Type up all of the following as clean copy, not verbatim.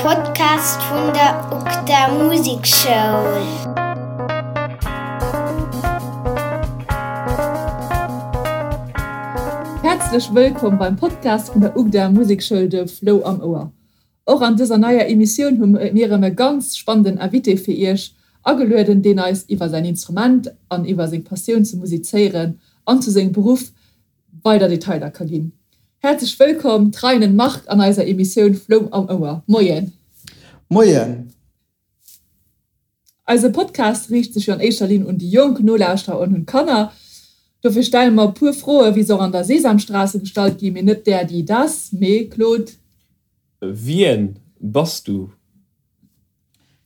Podcast vun der UGDA Musekschoul. Häerzlech wëllkomm beim Podcast vun der UGDA Musekschoul De Flou am Ouer. Och an dëser neier Emissioun hu mir erëm e ganz spannenden Invité fir iech agelueden, deen eis iwwer säin Instrument an iwwer seng Passioun zum Musizéieren an zu sengem Beruff weider Detailer ka ginn. Häerzlech wëllkomm Treinen Marc an eiser Emissioun Flou am Ouer. Moien. Moien. Eise Podcast riicht sech jo an éischter Linn un déi jonk Nolauschterer an un d'Kanner. Dofir stelle mer e puer Froe wéi se och an der Sesamstraße gestallt ginn, mee net der, die, das, mee Claude. Wien bass du?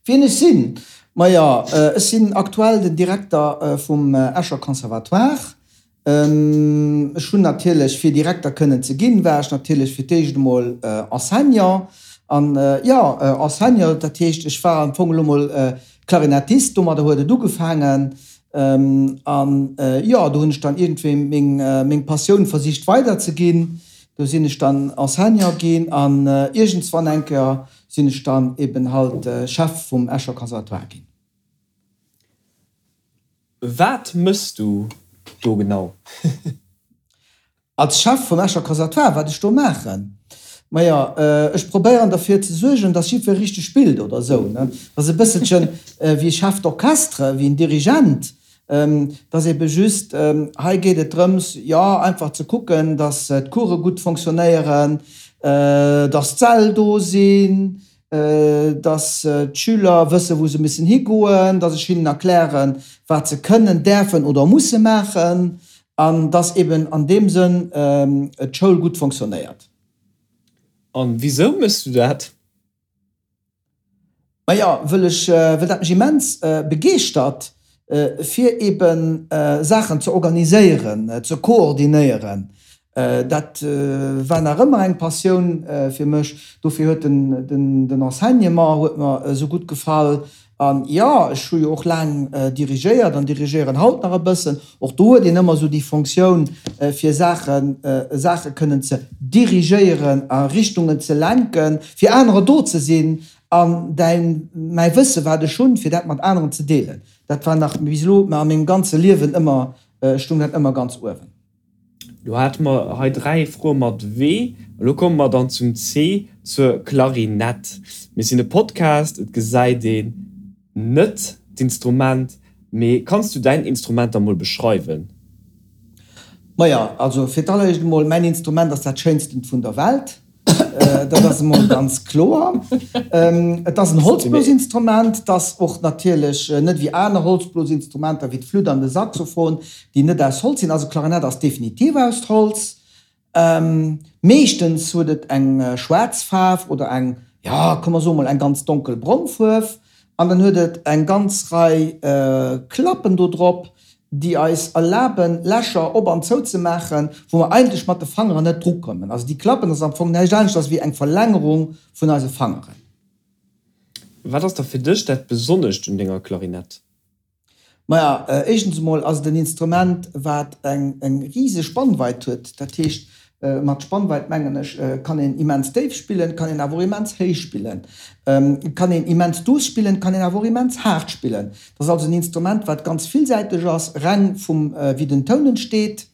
Wien ech sinn? Maja, ech sinn aktuell den Direkter vum Escher Conservatoire. Ech hunn natierlech, fir Direkter kënnen ze ginn, war ech natierlech fir d'éischt emol Enseignant. An jo, Enseignant, dat heescht, ech war am Fong elo mol Klarinettist, domadder huet et ugefaangen. An jo, do hunn ech dann iergendwéi meng Passioun versicht weiderzeginn. Do sinn ech dann Enseignant ginn an iergendswann eng Kéier sinn ech dann eben halt Chef vum Escher Conservatoire ginn. Wat mëss du do genau? Als Chef vum Escher Conservatoire, wat ech do maachen? Maja, ech probéieren derfir ze suergen, dass jiddwer richteg spillt oder esou, ne? Dat ass e bësselchen wéi e Chef d'orchestre, wéi en Dirigent. Et ass ebe just, hei geet et drëms, jo, einfach ze kucken, dass d'Course gutt fonctionnéieren, dass d'Säll do sinn, dass d'Schüler wëssen, wou se müssen higoen, dass ech hinnen erklären, wat se kënnen, däerfen oder musse maachen an dass eben an deem Sënn d'Schoul gutt fonctionnéiert. An wisou méchs du dat? Maja, wëll ech, wëll dat mech immens begeeschtert, fir eben Saachen ze organiséieren, ze koordinéieren. Dat war nach ëmmer eng Passioun fir mech. Dofir huet den Enseignement huet mer esou gutt gefall. An jo, ech hu jo och laang dirigéiert an dirigéieren haut nach e bëssen. Och do huet een ëmmer esou déi Fonctioun, fir Saachen, Saache kënnen ze dirigéieren, a Richtungen ze lenken, fir anerer do ze sinn an däin, mäi Wësse wat ech hunn, fir dat mat aneren ze deelen. Dat war nach bis elo a mengem ganze Liewen ëmmer, stung dat ëmmer ganz uewen. Lo hate mer hei 3 Froe mat W. Elo komme mer dann zum C, zur Klarinett. Mir sinn e Podcast, et gesäit een net d'Instrument, mee kanns du däin Instrument da mol beschreiwen? Maja, also fir d'alleréischt emol, mäin Instrument ass dat schéinstent vun der Welt. Dat ass emol ganz kloer. Et ass en Holzblosinstrument, dat ass och natierlech net wéi aner Holzblosinstrumenter wéi d'Flütt an de Saxophon, déi net aus Holz sinn. Also d'Klarinett ass definitiv aus Holz. Meeschtens huet et eng schwaarz Faarf oder eng, jo, komm mer soe mol eng ganz donkelbrong Fuerf. An dann huet et eng ganz Rei Klappen do drop, déi eis erlaben, Lächer op an zou ze maachen, wou mer eigentlech mat de Fangeren net drukommen. Also déi Klappen ass am Fong näischt aneschters wéi eng Verlängerung vun eise Fangeren. Wat ass da fir dech dat Besonnescht un denger Klarinett? Maja, éischtens emol ass et en Instrument, wat eng riseg Spannweit huet. Dat heescht, mat Spannweit mengen ech, kann een immens déif spillen, kann een awer och immens héich spillen. Et kann een immens duuss spillen, et kann een awer och immens haart spillen. Et ass also en Instrument, wat ganz villsäiteg ass, reng vum wéi den Toun entsteet,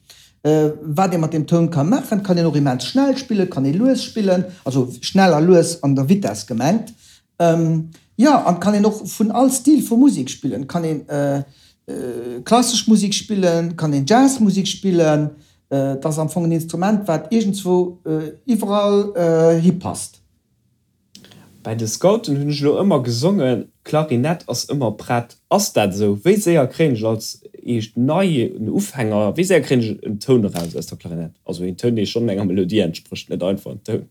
wat ee mat deem Toun ka maachen. Et kann een och immens schnell spillen, et kann ee lues spillen, also schnell a lues an der Vitess gemengt. Jo, an et kann een och vun all Stil vu Musek spillen. Et kann een klassesch Musek spillen, et kann een Jazzmusek spillen. Et ass am Fong en Instrument, wat iergendzwou iwwerall hipasst. Bei de Scouten hunn ech elo ëmmer gesongen, Klarinett ass ëmmer prett. Ass dat esou? Wéi séier kréien ech als eescht neien Ufänger, wéi séier kréien ech en Toun eraus aus der Klarinett? Also een Toun, dee schonn enger Melodie entsprécht, net einfach en Toun.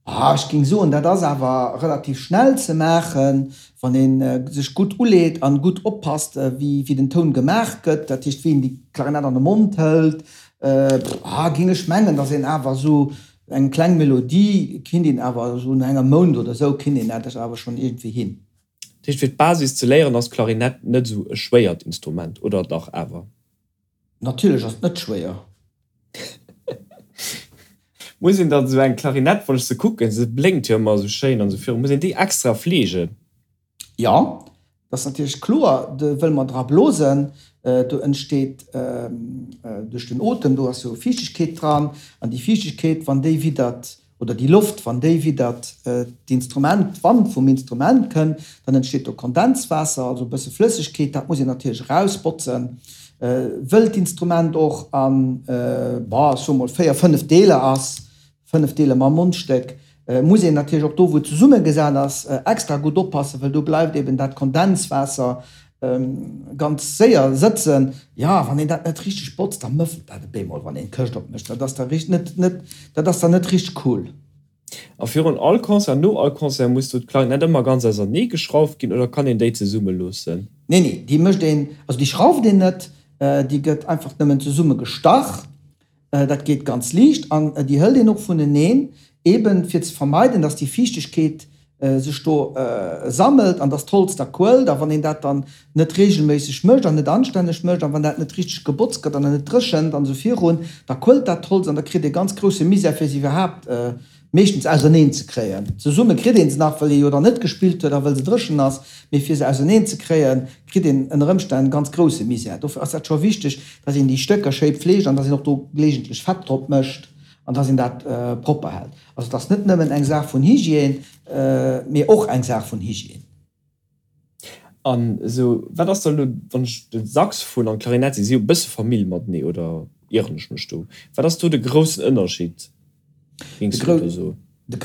Ah, ech géing soen, dat ass awer relativ schnell ze maachen, wann ee sech gutt uleet an gutt oppasst, wéi den Toun gemaach gëtt, dat heescht, wéi een déi Klarinett an de Mond hëlt. Ah, géing ech mengen, datt een awer esou Eng kleng Melodie kinnt een awer esou no engem Mount oder esou kinnt een dat awer schonn iergendwéi hin. Dat heescht fir d'Basis ze léieren ass d'Klarinett net esou e schwéiert Instrument, oder dach awer? Natierlech ass et net schwéier. Muss een dann esou eng Klarinett, wann ech se kucken, se blénkt jo ëmmer esou schéin an esou viru, muss een déi extra fleegen? Jo, dat ass natierlech kloer, do wëll mer dra blosen, do entsteet duerch den Otem, do ass jo Fiichtegkeet dran, an déi Fiichtegkeet, wann déi widdert, oder déi Loft, wann déi widdert d'Instrument, d'Wand vum Instrument kënn, dann entsteet do Kondenswaasser, also e bësse Flëssegkeet, dat muss een natierlech erausbotzen, wëll d'Instrument och an, bon, ech soe mol 4, 5 Deeler ass, 5 Deeler mam Mondstéck, muss een natierlech och do, wou et zesummegesat ass, extra gutt oppassen, well do bleift eben dat Kondenswaasser ganz séier sëtzen. Jo, wann een dat net richteg botzt, da mëffelt dat e bemol, wann een d'Këscht opmécht. Dat ass da richt net, net, dat ass dann net richteg cool. A virun all Concert, no all Concert muss do d'Klarinett ëmmer ganz ausernee geschrauft ginn oder kann een déi zesumme loossen? Nee, nee, déi mécht een, also déi schrauft een net, déi gëtt einfach nëmmen zesumme gestach. Dat geet ganz liicht an déi hëlt een och vuneneen, eben fir ze vermeiden, dass déi Fiichtegkeet sech do sammelt an dass d'Holz da quëllt. A wann een dat dann net reegelméisseg mécht an net anstänneg mécht an wann dat net richteg gebotzt gëtt an net dréchent an esou virun, da quëllt dat Holz an da kritt ee ganz grousse Misär fir se iwwerhaapt meeschtens auserneen ze kréien. Zesumme kritt een se nach, wëll ee jo dann net gespillt huet a wëll se dréchen ass, mee fir se auserneen ze kréien, kritt een ënner Ëmstänn ganz grousse Misär. Dofir ass dat scho wichteg, dass een déi Stécker schéi pfleegt an dass een och do geleegentlech Fett drop mécht an dass een dat propper hält. Also et ass net nëmmen eng Saach vun Hygiène, mee och eng Saach vun Hygiène. An esou, wat ass da elo, wann ech de Saxophon an d'Klarinett, si si jo e bësse Famill matenee, oder ieren ech mech do? Wat ass do de groussen Ënnerscheed, géings du do soen?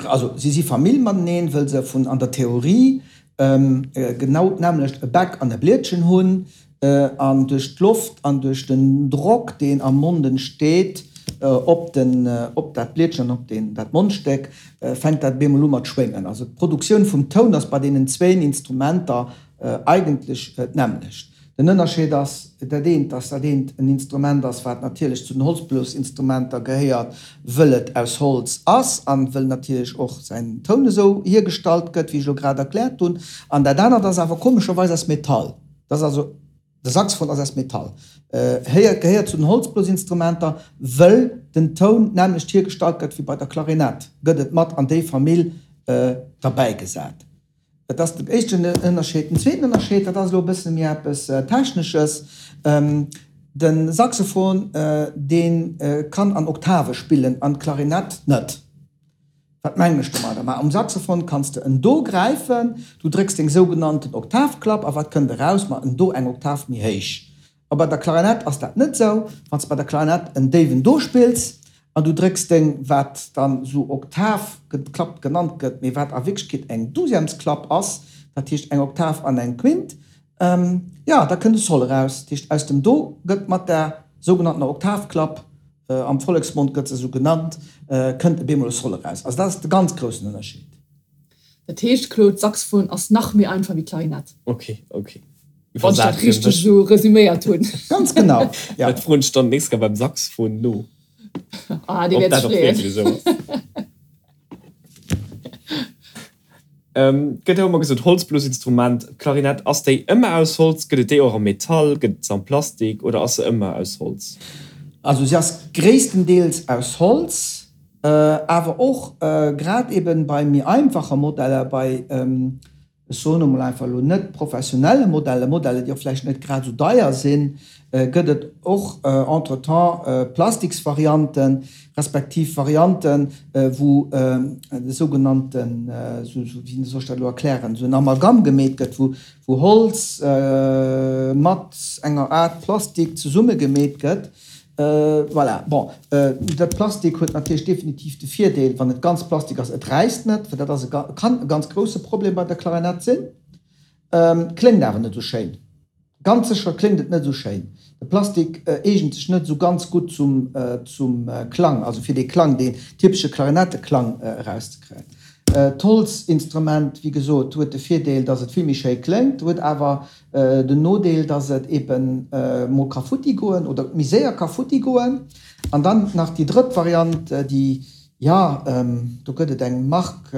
Also si si Famill mateneen, wëll se vun an der Theorie genau d'nämmlecht e Bäck an e Blietchen hunn, An duerch d'Loft an duerch den Drock, deen am Mond entsteet, op den, op dat Blietchen an op deen, dat Mondstéck, fänkt dat op eemol u mat schwéngen. Also d'Produktioun vum Toun ass bei deenen zwéin Instrumenter eigentlech d'nämmlecht. Den Ënnerscheed ass dat eent, dass dat eent en Instrument ass, wat natierlech zu den Holzblosinstrumenter gehéiert, wëll et aus Holz ass an wëll natierlech och säin Toun esou hiergestallt gëtt, wéi ech elo grad erkläert hunn. An dat anert ass awer komescherweis aus Metall. Dat ass also, de Saxophon ass aus Metall, héiert, gehéiert zu den Holzblosinstrumenter, wëll den Toun d'nämmlecht hiergestallt gëtt wéi bei der Klarinett, gëtt et mat an déi Famill derbäigesat. Dat ass den éischten Ënnerscheed. Den zweeten Ënnerscheed, dat ass elo e bësse méi eppes Technesches, De Saxophon, dee kann an Oktave spillen an d'Klarinett net. Wat mengen ech domadder? Ma um Saxophon kanns de en Do gräifen, du drécks deng sougenannten Oktavklapp a wat kënnt eraus? Ma en Do eng Oktav méi héich. A bei der Klarinett ass dat net sou. Wann s de bei der Klarinett en déiwen Do spills an du drécks deng, wat dann sou Oktavklapp genannt gëtt, mee wat a Wierklechkeet eng Douzièmesklapp ass, dat heescht eng Oktav an eng Quint, jo, da kënnt e Sol eraus. Dat heescht aus dem Do gëtt mat der sougenanntener Oktavklapp Am Volleksmond gëtt se esou genannt, kënnt e bemol e Sol eraus. Also dat ass de ganz groussen Ënnerscheed. Dat heescht, Claude, Saxophon ass nach méi einfach wéi Klarinett. Ok, ok. Wann ech dat richteg esou resüméiert hunn. Ganz genau, ja. Dat froen ech dann d'nächst Kéier beim Saxophon no. Ah, dee wäert sech freeën. Gëtt jo ëmmer gesot, Holzblosinstrument, d'Klarinett, ass déi ëmmer aus Holz? Gëtt et déi och am Metall? Gëtt et se am Plastik oder ass se ëmmer aus Holz? Also si ass gréisstendeels aus Holz, awer och grad eben bei méi einfache Modeller, bei ech soen emol einfach elo net professionelle Modelle, Modelle déi och vläicht net grad esou deier sinn, gëtt et och entretemps Plastiksvarianten, respektiv Varianten, wou de sougenannten, wéi soll ech dat elo erklären, esou en Amalgam gemeet gëtt, wou Holz mat enger Aart Plastik zesummegemeet gëtt. Voilà, bon, dat Plastik huet natierlech definitiv de Virdeel, wann et ganz Plastik ass, et räisst net, well dat ass e, kann e ganz grousse Problem bei der Klarinett sinn. Kléngt awer net esou schéin. Ganz sécher kléngt et net esou schéin. De Plastik eegent sech net esou ganz gutt zum zum Klang, also fir dee Klang, deen typesche Klarinetteklang erauszekréien. D'Holzinstrument, wéi gesot, huet de Virdeel, dass et vill méi schéi kléngt, huet awer den Nodeel, dass et eben mol ka futti goen oder méi séier ka futti goen. An dann nach déi drëtt Variant, déi, jo, do gëtt et eng Mark,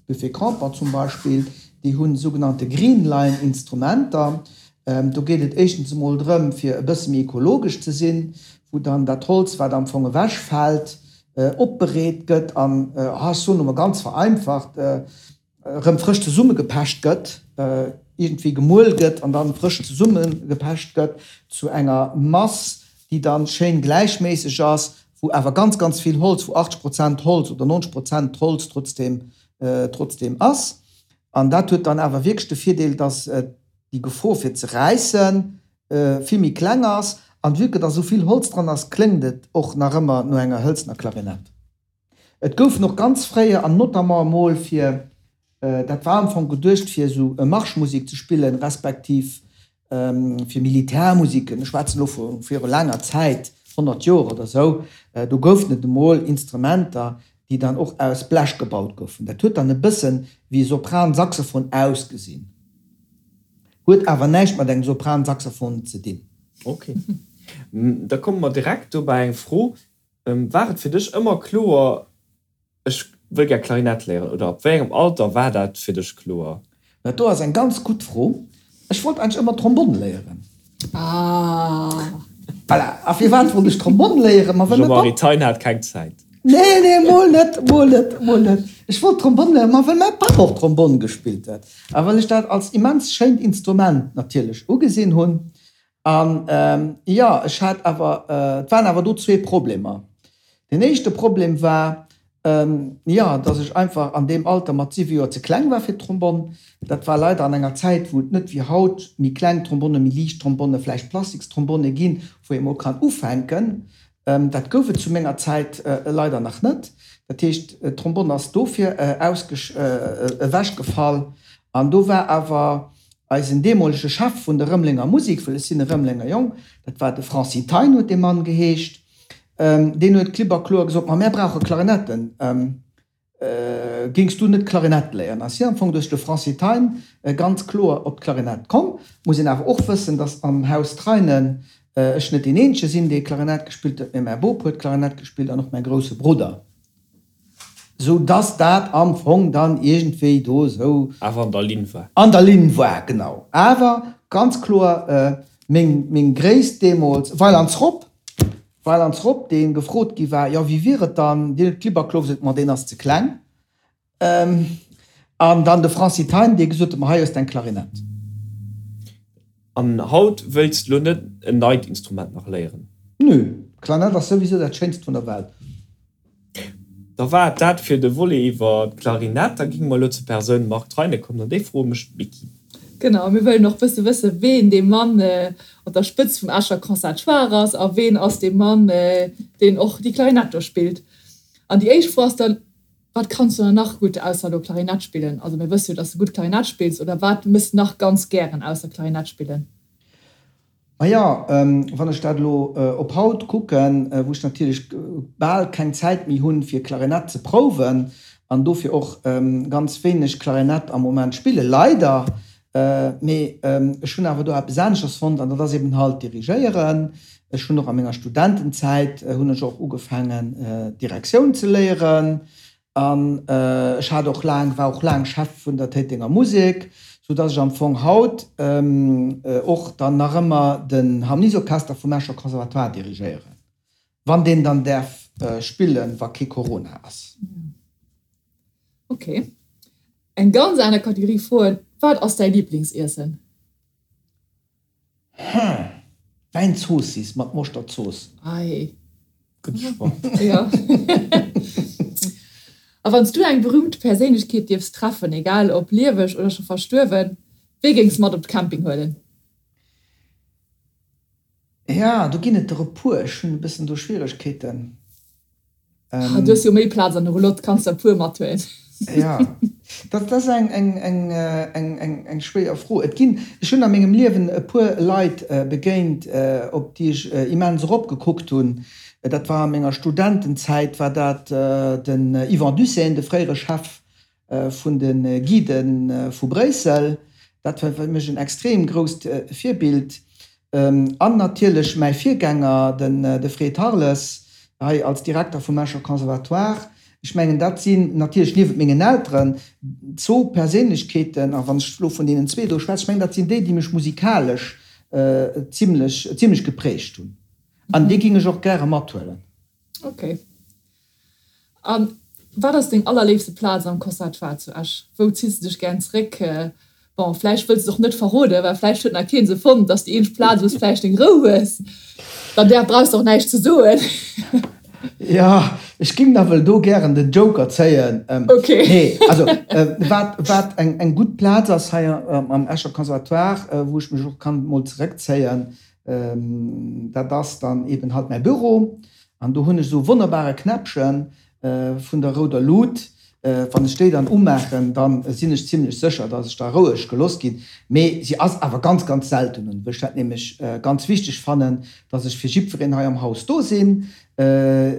Buffet Crampon zum Beispill, déi hu sougenannte Greenline Instrumenter. Do geet et éischtens emol drëm, fir e bësse méi ekologesch ze sinn, wou dann dat Holz, wat am Fong ewechfält. opbereet gëtt an, ech soen elo mol ganz vereinfacht, erëm frësch zesummegepecht gëtt, iergendwéi gemuel gëtt an dann frësch zesummegepecht gëtt zu enger Mass, déi dann schéin gläichméisseg ass, wou awer ganz, ganz vill Holz, wou 80 Prozent Holz oder 90 Prozent Holz trotzdem, trotzdem ass. An dat huet dann awer wierklech de Virdeel, dass déi Gefor fir ze räissen vill méi kleng ass. An vue que dass esou vill Holz dran ass, kléngt et och nach ëmmer no enger hëlzener Klarinett. Et goufen och ganz fréier, an notamment emol fir, dat war am Fong geduecht fir esou Marschmusek ze spillen, respektiv fir Militärmusiken, ech schwätzen elo vu viru laanger Zäit, 100 Joer oder esou, do goufen et emol Instrumenter, déi dann och aus Blech gebaut goufen. Dat huet dann e bëssen wéi e Sopran-Saxophon ausgesinn, huet awer näischt mat engem Sopran-Saxophon ze dinn. Ok, da komme mer direkt do bei eng Fro, War et fir dech ëmmer kloer, ech wëll gär Klarinett léieren oder ab wéi engem Alter war dat fir dech kloer? Dat do ass eng ganz gutt Fro. Ech wollt eigentlech ëmmer Trombonn léieren. Ah. Voilà. A firwat wollt ech Trombonn léieren? Ma well mäi Papp. Jean-Marie Thein hat keng Zäit. Nee, nee, mol net, mol net, mol net. Ech wollt Trombonn léieren, ma well mäi Papp och Trombonn gespillt huet a well ech dat als immens schéint Instrument natierlech ugesinn hunn. An jo, ech hat awer, et waren awer do zwee Problemer. Deen éischte Problem war, jo, dass ech einfach an deem Alter mat siwe Joer ze kleng war fir d'Trombonn. Dat war leider an enger Zäit, wou et net wéi haut méi kleng Trombonne, méi liicht Trombonne, vläicht Plastikstronbonne ginn, wou ee mol kann ufänken. Dat gouf et zu menger Zäit leider nach net. Dat heescht, d'Trombonn ass dofir ewechgefall. An do war awer eisen deemolege Chef vun der Rëmelenger Musek, well ech sinn e Rëmelenger Jong, dat war de Francis Thein huet dee Mann geheescht, deen huet klipp a kloer gesot, Ma mär brauche Klarinetten. Géings du net Klarinett léieren? Ass hien am Fong duerch de Francis Thein ganz kloer op d'Klarinett komm. Muss een awer och wëssen, dass am Haus Treinen ech net deen eenzege sinn, dee Klarinett gespillt huet, mee mäi Bop huet Klarinett gespillt an och mäi grousse Brudder. Sou dass dat am Fong dann iergendwéi do esou. Awer an der Linn war. An der Linn war, genau. Awer ganz kloer meng Gréisst deemools, Weilands Rob, Weilands Rob, dee gefrot gi war, jo wéi wier et dann, deen huet klipp a kloer gesot, ma deen ass ze kleng. An dann de Francis Thein, dee gesot huet, ma hei hues de eng Klarinett. An haut wëilts de lo net en neit Instrument nach léieren? Nö, d'Klarinett ass souwisou dat schéinst vun der Welt. Da war et dat fir de Volet iwwer d'Klarinett. Da géinge mer elo zur Persoun Marc Treine kommen an déi Froe mécht d'Micky. Genau, mir wëllen och bësse wësse ween dee Mann op der Spëtzt vum Escher Conservatoire ass a ween ass dee Mann, deen och déi Klarinett do spillt. An déi éischt Fro ass dann, Wat kanns du dann nach gutt ausser elo Klarinett spillen? Also mir wësse jo, dass du gutt Klarinett spills, oder wat mëss de nach ganz gären ausser Klarinett spillen? Maja, wann ech dat elo op haut kucken, wou ech natierlech bal keng Zäit méi hunn, fir Klarinett ze prouwen an dofir och ganz wéineg Klarinett am Moment spillen, leider, mee ech hunn awer do eppes aneschters fonnt an dat ass eben halt dirigéieren. Ech hunn och a menger Studentenzäit hunn ech och ugefaangen Direktioun ze léieren An ech hat och laang, war och laang Chef vun der Téitenger Musek, sou dass ech am Fong haut och dann nach ëmmer den Harmoniesorchester vum Escher Conservatoire dirigéieren, wann deen dann däerf spillen, wa kee Corona ass. Ok. Eng ganz aner Kategorie Froen, Wat ass däi Liblingsiessen? Hm, Wäinzoossiss mat Moschterzooss. Ei. Gutt Choix. Jo. A wann s du eng berühmt Perséinlechkeet dierfs treffen, egal ob lieweg oder scho verstuerwen, wee géings mat op de Camping huelen? Ja, do ginn et der e puer. Ech hunn e bëssen do Schwieregkeeten. Ah, du hues jo méi Plaz an der Roulotte, kanns der e puer mathuelen. Ja, dat ass eng, eng, eng, eng, eng, eng schwéier Fro. Et ginn, ech hunn a mengem Liewen e puer Leit begéint, op déi ech immens eropgekuckt hunn. Dat war a menger Studentenzäit war dat den Yvan Dussehn, de fréiere Chef vun de Guiden vu Bréissel. Dat war fir mech en extrem grousst Virbild. An natierlech mäi Virgänger, de Fred Harles, hei als Direkter vum Escher Conservatoire. Ech mengen, dat sinn natierlech niewent mengen Elteren zwou Perséinlechkeeten, a wann ech elo vun deenen zwee do schwätzen, ech mengen, dat sinn déi, déi mech musikalesch zimlech, zimlech geprägt hunn. An déi géing ech och gäre mathuelen. Okay. A wat ass deng allerléifste Plaz am Conservatoire zu Esch? Wou ziss de dech gären zeréck? Bon, vläicht wëlls de et och net verroden, well vläicht huet nach keen se fonnt, dass déi eenzeg Plaz, wou s vläicht deng Rou hues. Dann där brauchs de och näischt ze soen. Jo, ech ging nawell do gären den Joker zéien. Ok. Nee, also wat, wat eng, eng gutt Plaz ass hei am Escher Conservatoire, wou ech mech och kann mol zeréckzéien, dat ass dann eben halt mäi Büro. An do hunn ech esou e wonnerbare Knäppchen vun der rouder Lut. Wann ech déi dann umaachen, da sinn ech zimlech sécher, dass ech da roueg gelooss ginn. Mee si ass awer ganz, ganz selten un, well ech dat nämlech ganz wichteg fannen, dass ech fir jiddwereen hei am Haus do sinn,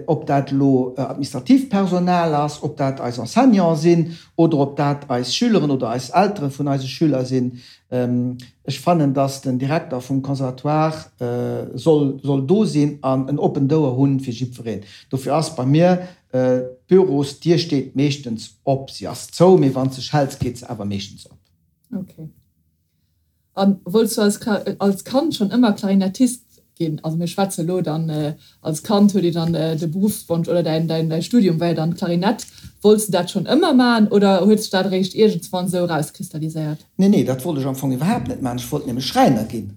ob dat elo administratiivt Personal ass, ob dat eis Enseignanten sinn oder ob dat eis Schüleren oder eis Eltere vun eise Schüler sinn. Ech fannen, dass den Direkter vum Conservatoire soll soll do sinn an en oppent Ouer hunn fir jiddwereen. Dofir ass bei mir d'Bürosdier steet meeschtens op. Si ass zou, mee wann s de schells, geet se awer meeschtens op. Ok. A wollts du als als Kand schonn ëmmer Klarinettist ginn? Also mir schwätze elo dann, als Kand huet ee dann de Beruffswonsch oder däin däin däi Studium war jo dann Klarinett. Wollts du dat schonn ëmmer maachen oder huet sech dat eréischt iergendswann esou erauskristalliséiert? Nee, nee, dat wollt ech am Fong iwwerhaapt net maachen. Ech wollt nämlech Schräiner ginn.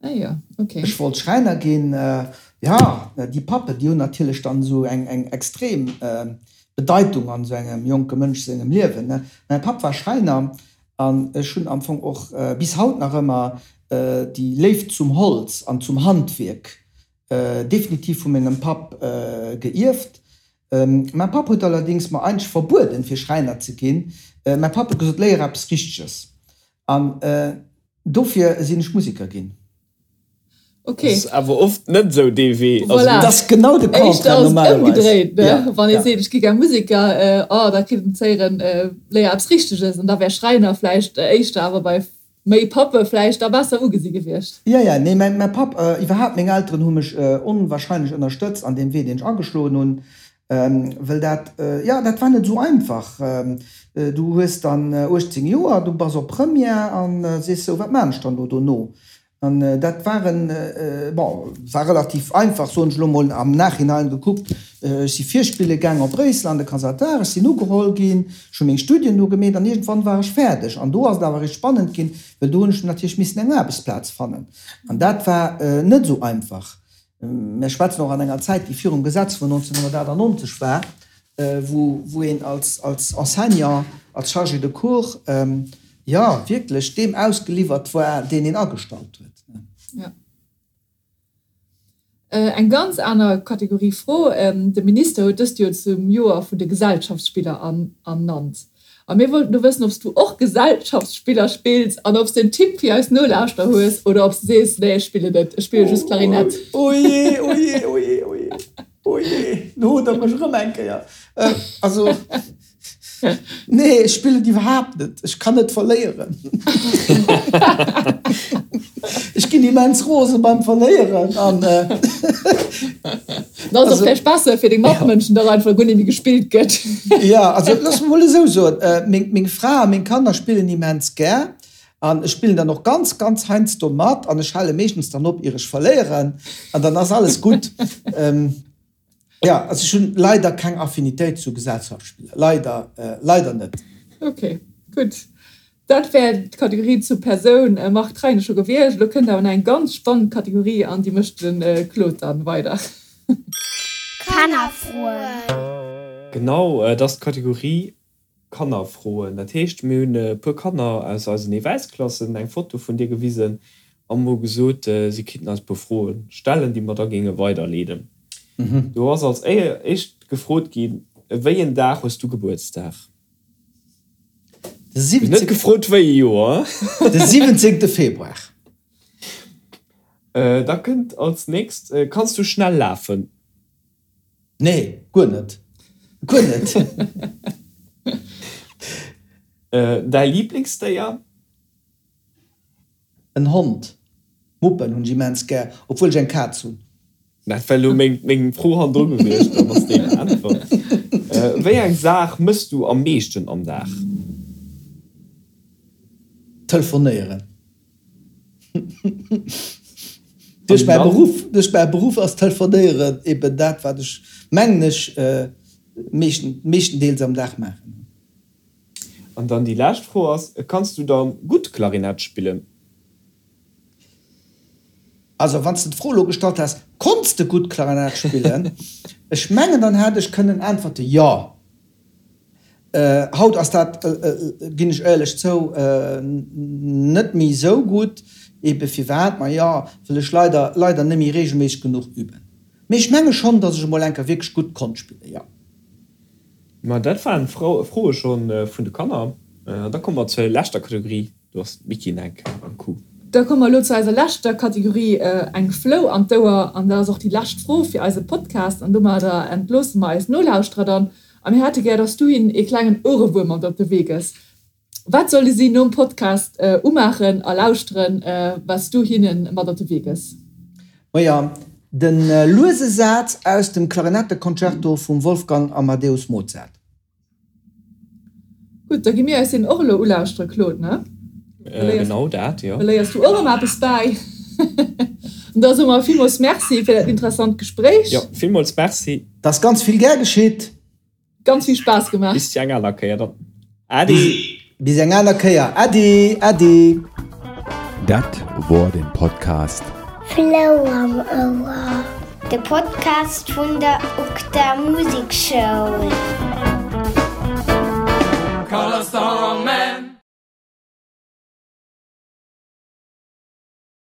Ah jo, ok. Ech wollt Schräiner ginn. Jo, déi Pappen, déi hunn natierlech dann esou eng eng extrem Bedeitung an esou engem jonke Mënsch sengem Liewen, ne. Mäi Papp war Schräiner An ech hunn am Fong och bis haut nach ëmmer déi Léift zum Holz an zum Handwierk definitiv vu mengem Papp geierft. Mäi Papp huet allerdéngs mer eigentlech verbueden, fir Schräiner ze ginn. Mäi Papp huet gesot, Léier eppes Richteges. An dofir sinn ech Museker ginn. Okay. Ass awer oft net esou dee Wee. Voilà. Dat ass genau de Contraire normalerweis. Ëmgedréit, ne? Ja. Wann ee seet, ech gi gär Museker, oh, da kritt en z'héieren, léier eppes Richteges. An da wär Schräiner vläicht éischter awer bei méi Pappe vläicht da besser ugesi gewiescht. Ja, ja, nee, mäi, mäi Papp, iwwerhaapt meng Elteren hu mech onwahrscheinlech ënnerstëtzt an deem Wee, deen ech ageschloen hunn. Well dat, jo, dat war net esou einfach. Du hues dann 18 Joer, du bass op Première an sees sou, wat maan ech dann elo dono? An dat war en, bon, war relativ einfach, soen ech elo mol am Nachhinein gekuckt. Ech si virspille gaang op Bréissel an de Conservatoire, ech sinn ugeholl ginn, ech hu meng Studien do gemeet an iergendwann war ech fäerdeg. An do ass et awer eréischt spannend ginn, well do hunn ech natierlech missen eng Aarbechtsplaz fannen. An dat war net esou einfach. Mir schwätzen och an enger Zäit, déi virum Gesetz vun 1998 war, wou een als Enseignant, als Chargé de cours, jo, wierklech deem ausgeliwwert war, deen een agestallt huet. Jo. Eng ganz aner Kategorie Fro, De Minister huet dëst Joer zum Joer vun de Gesellschaftsspiller ernannt. A mir wollten do wëssen, ob s du och Gesellschaftsspiller spills an ob s de en Tipp fir eis Nolauschterer hues oder ob s de sees, Nee, ech spillen net, ech spille just Klarinett. Oh jee, oh jee, oh jee, oh jee, oh jee, lo hutt der mech erëm eng Kéier. Also, nee, ech spillen iwwerhaapt net. Ech kann net verléieren. Ech ginn immens rose beim Verléieren an. Da ass och vläicht besser fir deng Matmënschen, datt einfach guer net méi gespillt gëtt. Jo, also looss mer mol esou soen, meng Fra a meng Kanner spillen immens gär an ech spillen dann och ganz, ganz heiansdo mat an ech hale meeschtens dann op, ier ech verléieren an dann ass alles gutt. Jo, also ech hunn leider keng Affinitéit zu Gesellschaftsspiller, leider, leider net. Ok, gutt. Dat wär d'Kategorie zur Persoun Marc Treine scho gewiescht. Elo kënnt awer nach eng ganz spannend Kategorie an déi mécht de Claude dann weider. Kannerfroen. Genau, et ass d'Kategorie Kannerfroen. Dat heescht, mir hunn e puer Kanner aus eisen Ewäisklassen eng Foto vun dir gewisen an hu gesot, si kinnten eis e puer Froe stellen, déi mer da géinge weiderleeden. Do ass als éischt gefrot ginn, Wéi en Dag hues du Gebuertsdag? De 17. Net gefrot wéi e Joer. De 17. Februar. Da kënnt als nächst, Kanns du schnell lafen? Nee, guer net. Guer net. Däi Liblingsdéier? En Hond. Muppen hunn ech immens gär, obwuel ech eng Kaz hunn. Dat wär elo meng Fro hannendru gewiescht, dann ass déi beäntwert. Wéi eng Saach mëss du am meeschten am Dag? Telefonéieren. Duerch mäi Beruff, duerch mäi Beruff ass Telefonéieren eben dat, wat ech, mengen ech. meeschten, meeschtendeels am Dag maachen. An dann déi lescht Fro ass, Kanns du dann gutt Klarinett spillen? Also wann s de d'Fro elo gestallt häss, Konns de gutt Klarinett spillen? Ech mengen, dann hätt ech kënnen äntwerte jo. Haut ass dat, ginn ech éierlech zou, net méi esou gutt. Ebe firwat? Majo, well ech leider, leider net méi reegelméisseg genuch üben. Mee ech menge schonn, datt ech emol eng Kéier wierklech gutt konnt spillen, jo. Ma dat waren d'Froe scho vun de Kanner. An da komme mer zur leschter Kategorie, do ass d'Micky Neck am Coup. Da komme mer elo zu eiser leschter Kategorie, eng Flou an d'Ouer. An dat ass och déi lescht Fro fir eise Podcast. An domadder entloosse mer eis Nolauschterer dann. A mir hätte gär, dass du hinnen ee klengen Ouerewuerm mat op de Wee gëss. Wat solle si nom Podcast umaachen a lauschteren, wat s du hinne mat op de Wee gëss? Maja, de luese Saz aus dem Klarinetteconcerto vum Wolfgang Amadeus Mozart. Gutt, da gi mir eis deen och elo ulauschtere, Claude, ne? Genau dat, jo. Da léiers du och erëm eppes bäi. An da soe mer villmools Merci fir dat interessant Gespréich. Jo, villmools Merci. 't ass ganz vill gär geschitt. Ganz vill Spaass gemaach. Bis eng aner Kéier dann. Äddi. Bis eng aner Kéier. Äddi, äddi. Dat wor den Podcast. Flou am Ouer, de Podcast vun der UGDA Musekschoul.